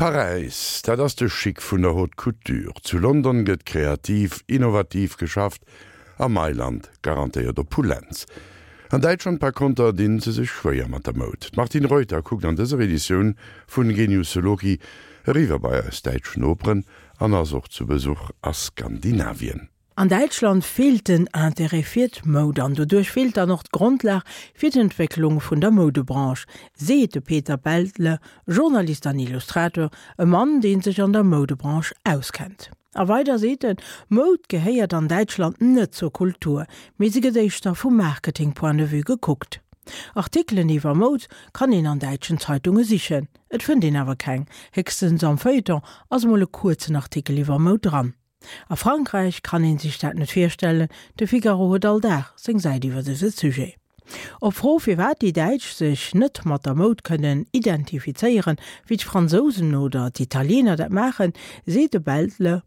Paräis, dat ass de Chic vun der Haute Couture. Zu London gëtt kreativ, innovativ geschafft a Mailand garantéiert Opulenz. An Däitschland par konter dinn se sech schwéier mat der Moud. D'Martine Reuter kuckt an dëser Editioun vun Genius Loci eriwwer bei eis däitsch Noperen an ass och zu Besuch a Skandinavien. An Däitschland feelt den Interêt fir d'Moud an doduerch feelt dann och d'Grondlag fir d'Entwécklung vun der Moudebranche, seet de Peter Beltle, Journalist an Illustrateur, e Mann, dee sech an der Moudebranche auskennt. A weider seet en, Moud gehéiert an Däitschland net zur Kultur, mee se gëtt éischter vum Marketing-Point de vue gekuckt. Artikelen iwwer Moud kann een an däitschen Zeitunge sichen, et fënnt een awer keng, héchstens am Feuilleton ass mol e kuerzen Artikel iwwer Moud dran. A Frankräich kann een sech dat net virstellen, de Figaro huet all Dag seng Säit iwwer dëse Sujet. Op Fro firwat déi Däitsch sech net mat der Moud kënnen identifizéieren, wéi d'Fransousen oder d'Italiener dat maachen, seet de Beltle,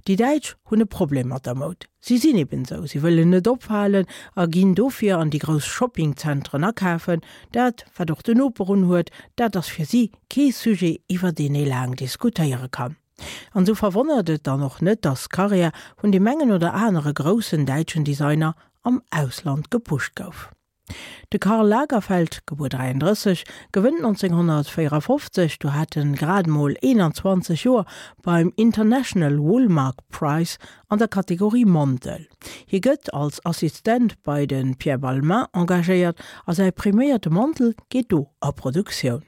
Déi Däitsch hunn e Problem mat der Moud. Si sinn eben esou, si wëllen net opfalen a ginn dofir an déi grouss Shoppingzentren akafen. Dat, wat och den Noper unhuet, dat ass fir si kee Sujet, iwwer deen ee laang diskutéiere kann. An esou verwonnert et dann och net, dass d'Karriär vun deem engen oder anere groussen däitschen Designer am Ausland gepusht gouf. De Karl Lagerfeld, gebuer 33, gewënnt 1954, do hat en grad mol 21 Joer, beim International Woolmark Prize an der Kategorie Mantel. Hie gëtt als Assistent bei de Pierre Balmain engagéiert a säi priméierte Mantel geet do a Produktioun.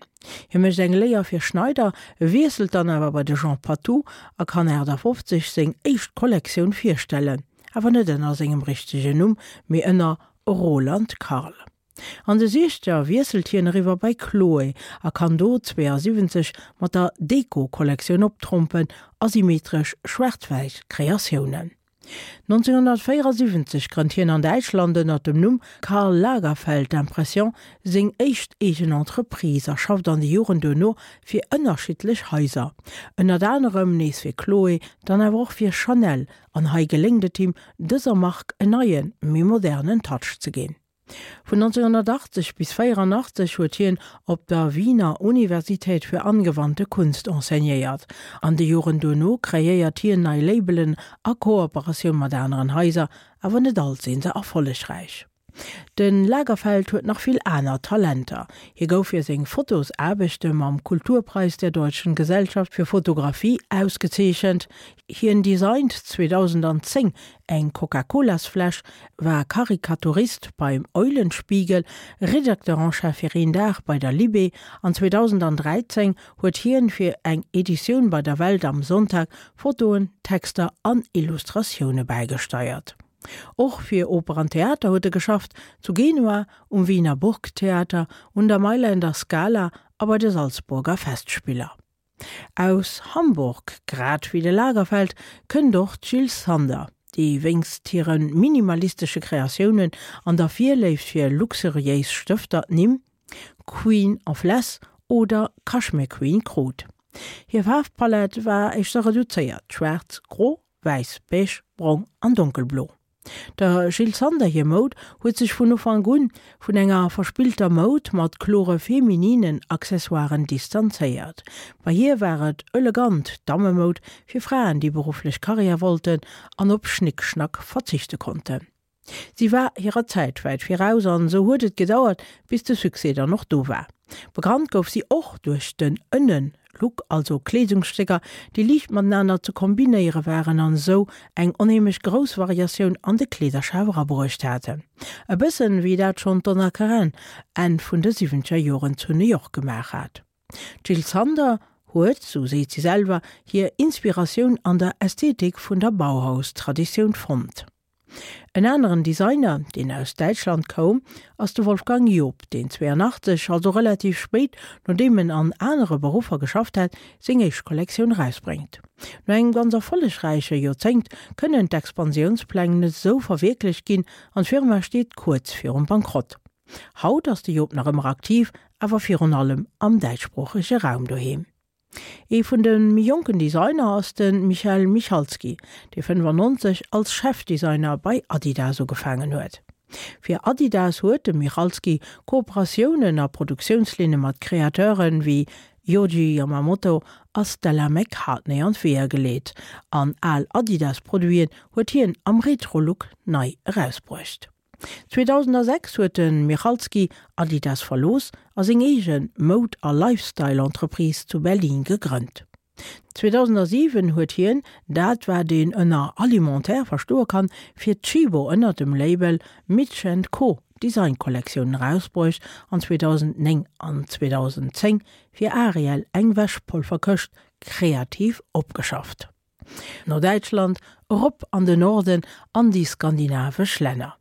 Hie mécht eng Léier fir Schneider, wiesselt dann awer bei de Jean Patou a kann 58 seng éischt Kollektioun virstellen, awer net ënner sengem richtegen Numm, mee ënner Roland Karl. An de Siechzeger wiesselt hien eriwwer bei Chloé a kann do 72 mat der Deco-Kollektioun optrompen, asymmetresch schwaarz-wäiss Kreatiounen. 1974 grënnt hien an Däitschland ënner dem Numm Karl Lagerfeld Impression seng éischt eegen Entreprise a schafft an de Joren duerno fir ënnerschiddlech Haiser, ënnert anerem nees fir Chloé, dann awer och fir Chanel, an hei geléngt et him, dëser Mark en neien, méi modernen Touch ze ginn. Vun 1980 bis 84 huet hien op der Wiener Universität für angewandte Kunst enseignéiert. An de Joren duerno kreéiert hien nei Labelen a Kooperatioun mat aneren Haiser, awer net all sinn se erfollegräich. De Lagerfeld huet nach vill aner Talenter. Hie gouf fir seng Fotosaarbechte mam Kulturpreis der Deutschen Gesellschaft für Fotografie ausgezeechent. Hien designt 2010 eng Coca-Colas-Fläsch, war Karikaturist beim Eulenspiegel, Rédacteur en chef fir een Dag bei der Libé an 2013 huet hien fir eng Editioun bei der Welt am Sonntag Fotoen, Texter an Illustratioune bäigesteiert. Och fir Oper an Theater huet e geschafft, zu Genua, um Wiener Burgtheater, un der Mailänder Scala a bei de Salzburger Festspiller. Aus Hamburg, grad wéi de Lagerfeld, kënnt och d'Jil Sander, déi wéinst hire minimalistesche Kreatiounen an der Virléift fir luxuriéis Stëfter d'Nimm Queen of Less oder Cashmere Queen krut. Hir Faarfpalett war éischter reduzéiert, schwaarz, gro, wäiss, beige, brong an donkelblo. Der Jil Sander hir Moud huet sech vun Ufank un vun enger verspillter Moud mat klore femininen Accessoiren distanzéiert. Bei hir war et elegant Dammemoud fir Fraen, déi berufflech Karriär wollten an op Schnickschnack verzichte konnten. Si war hirer Zäit wäit viraus an esou huet et gedauert, bis de Succès dann och do war. Bekannt gouf si och duerch den Ënnen Look, also Kleedungsstécker, déi liicht matenaner ze kombinéiere waren an esou eng onheemlech grouss Variatioun an de Kleederschaf erabruecht haten. E bëssen wéi dat schonn d'Donna Karan Enn vun de siwwenzeger Joren zu New York gemaach hat. D'Jil Sander huet, sou seet si selwer, hir Inspiratioun an der Ästhetik vun der Bauhaus-Traditioun fonnt. En aneren Designer, deen aus Däitschland koum, ass de Wolfgang Joop, deen 82, also relativ spéit, nodeem en an anere Beruffer geschafft hat, seng éischt Kollektioun erausbréngt. No engem ganz erfollegräiche Joerzéngt kënnen d'Expansiounspläng net esou verwierklecht ginn an d'Firma steet kuerz virum Bankrott. Haut ass de Joop nach ëmmer aktiv, awer virun allem am däitschsproochege Raum doheem. Ee vun de méi jonken Designer ass de Michael Michalsky, dee 95 als Chefdesigner bei Adidas ugefaangen huet. Fir Adidas huet de Michalsky Kooperatiounen a Produktiounslinne mat Kreateure wéi. Yohji Yamamoto a Stella McCartney an d'Weeër geleet an al Adidas-Produiten huet hien am Retro-Look nei erausbruecht. 2006 huet de Michalsky Adidas verlooss a seng eege Moud a Lifestyle-Entreprise zu Berlin gegrënnt. 2007 huet hien dat wat een ënner Alimentaire verstoe kann, fir Tchibo ënner dem Label Mitch and Co Designkollektiounen erausbruecht an 2009 an 2010 fir Ariel eng Wäschpolverkëscht kreativ opgeschafft. No Däitschland, erop an de Norden an déi skandinavesch Länner.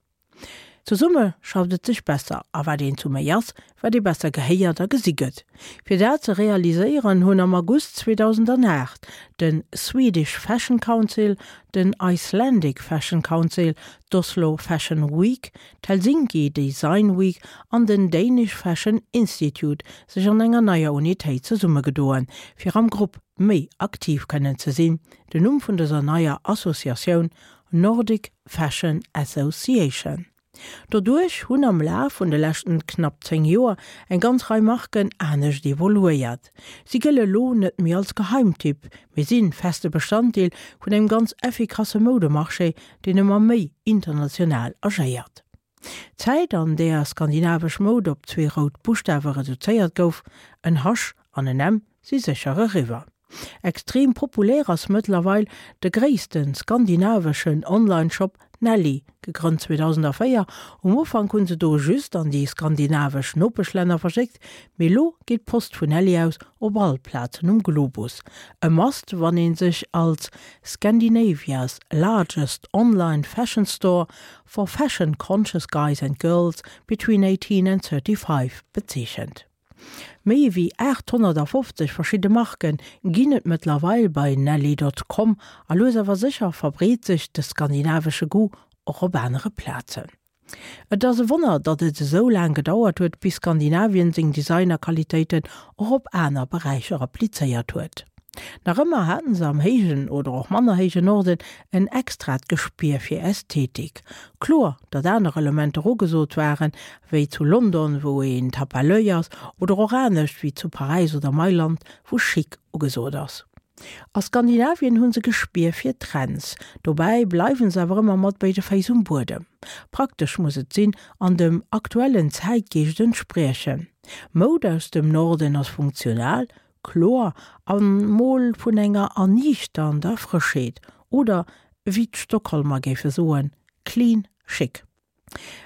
Zesumme schafft et sech besser, a wat een zu méi ass, wat ee besser gehéiert a gesi gëtt. Fir dat ze realiséieren, hunn am August 2008 de Swedish Fashion Council, den Icelandic Fashion Council, d'Oslo Fashion Week, d'Helsinki Design Week an den Danish Fashion Institute sech an enger neier Unitéit zesummegedoen, fir am Grupp méi aktiv kënnen ze sinn. Den Numm vun dëser neier Associatioun, Nordic Fashion Association. Doduerch hunn am Laf vun de leschten knapp 10 Joer eng ganz Rei Marken anescht evoluéiert. Si gëlle lo net méi als Geheimtipp, mee sinn feste Bestanddeel vun engem ganz effikasse Moudemarché, deen ëmmer méi international agéiert. D'Zäit, an där skandinavesch Moud op zwee rout Buschtawe reduzéiert gouf, en H an en M, si sécher eriwwer. Extrem populär ass mëttlerweil de gréisste skandinaveschen Online-Shop Nelly, gegrënnt 2004. Um Ufank hunn se do just an déi skandinavesch Nopeschlänner verschéckt, mee lo geet d'Post vun Nelly aus op all Plazen um Globus. E Must, wann ee sech als Scandinavia's largest online fashion store for fashion-conscious guys and girls between 18 and 35 bezeechent. Méi ewéi 850 verschidde Marke ginn et mëttlerweil bei Nelly Dot Com a lues awer sécher verbreet sech de skandinavesche Goût och op anere Plazen. Et ass e Wonner, datt et esou laang gedauert huet, bis Skandinavien seng Designer-Qualitéiten och op aner Beräicher applizéiert huet. Nach ëmmer haten se am héijen oder och manner héijen Norden en extrat Gespier fir Ästhetik. Kloer, datt aner Elementer ugesot waren, wéi zu London, wou een Tape à l'oeil ass, oder och anescht, wéi zu Paräis oder Mailand, wou Chic ugesot ass. A Skandinavien hu se Gespier fir Trends, dobäi bleiwen se awer ëmmer mat béide Féiss um Buedem. Praktesch muss et sinn an dem aktuellen Zäitgeescht entspriechen. Moud aus dem Norden ass funktional, Kloer an mol vun enger erniichternder Frëschheet, oder wéi d'Stockholmer géife soen, clean chic.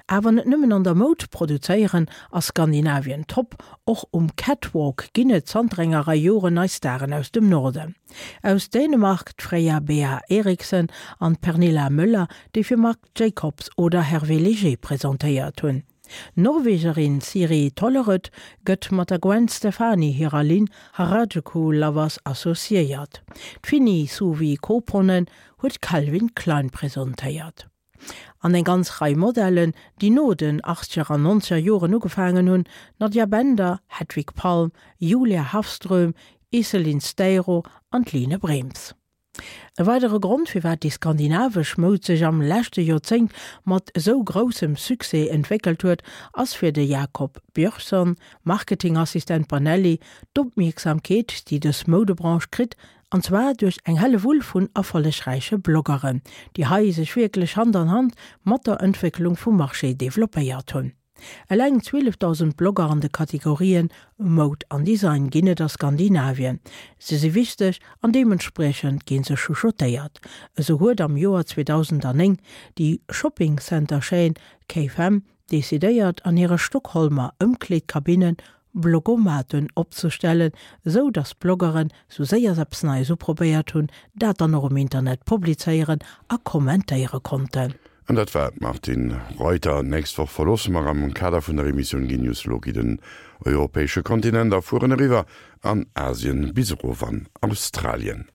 Awer net nëmmen an der Moud produzéieren ass Skandinavien top, och um Catwalk ginn et zanter enger Rei Joren nei Staren aus dem Norden. Aus Dänemark d'Freya Bea Eriksen an d'Pernilla Möller, déi fir Marc Jacobs oder Hervé Léger presentéiert hunn. D'Norwegerin Siri Tollerød gëtt mat der Gwen Stefani hirer Linn Harajuku Lovers associéiert. D'Finni Suvi Koponen huet Calvin Klein presentéiert. An eng ganz Rei Modellen, déi no den achtzeger an nonzeger Joren ugefaangen hunn, Nadja Bender, Hedvig Palm, Julia Hafström, Iselin Steiro an d'Line Brems. E weidere Grond, firwat déi skandinavesch Moud sech am leschte Joerzéngt mat esou groussem Succès entwéckelt huet, ass fir de Jakob Björnsson, Marketingassistent bei Nelly, d'Opmierksamkeet, déi dës Moudebranche kritt, an zwar duerch eng Hellewull vun erfollegräiche Bloggeren, déi hei sech wierklech Hand an Hand mat der Entwécklung vum Marché developpéiert hunn. Eleng 12.000 Blogger an de Kategorien Moud an Design ginn et a Skandinavien. Se si wichteg an deementspriechend gi se chuchotéiert. Esou huet am Joer 2009 déi Shopping Center Chaîne K-Fem decidéiert an hire Stockholmer Ëmkleedkabinnen Blogomaten opzestellen, esou datt d'Bloggeren, sou séier se eppes Neies uprobéiert hunn, dat dann och um Internet publizéieren a kommentéiere konnten. An dat war d'Martine Reuter. D'nächst Woch verloosse mer am Kader vun der Emissioun Genius Loci den europäesche Kontinent a fueren eriwwer an Asien bis erof an Australien.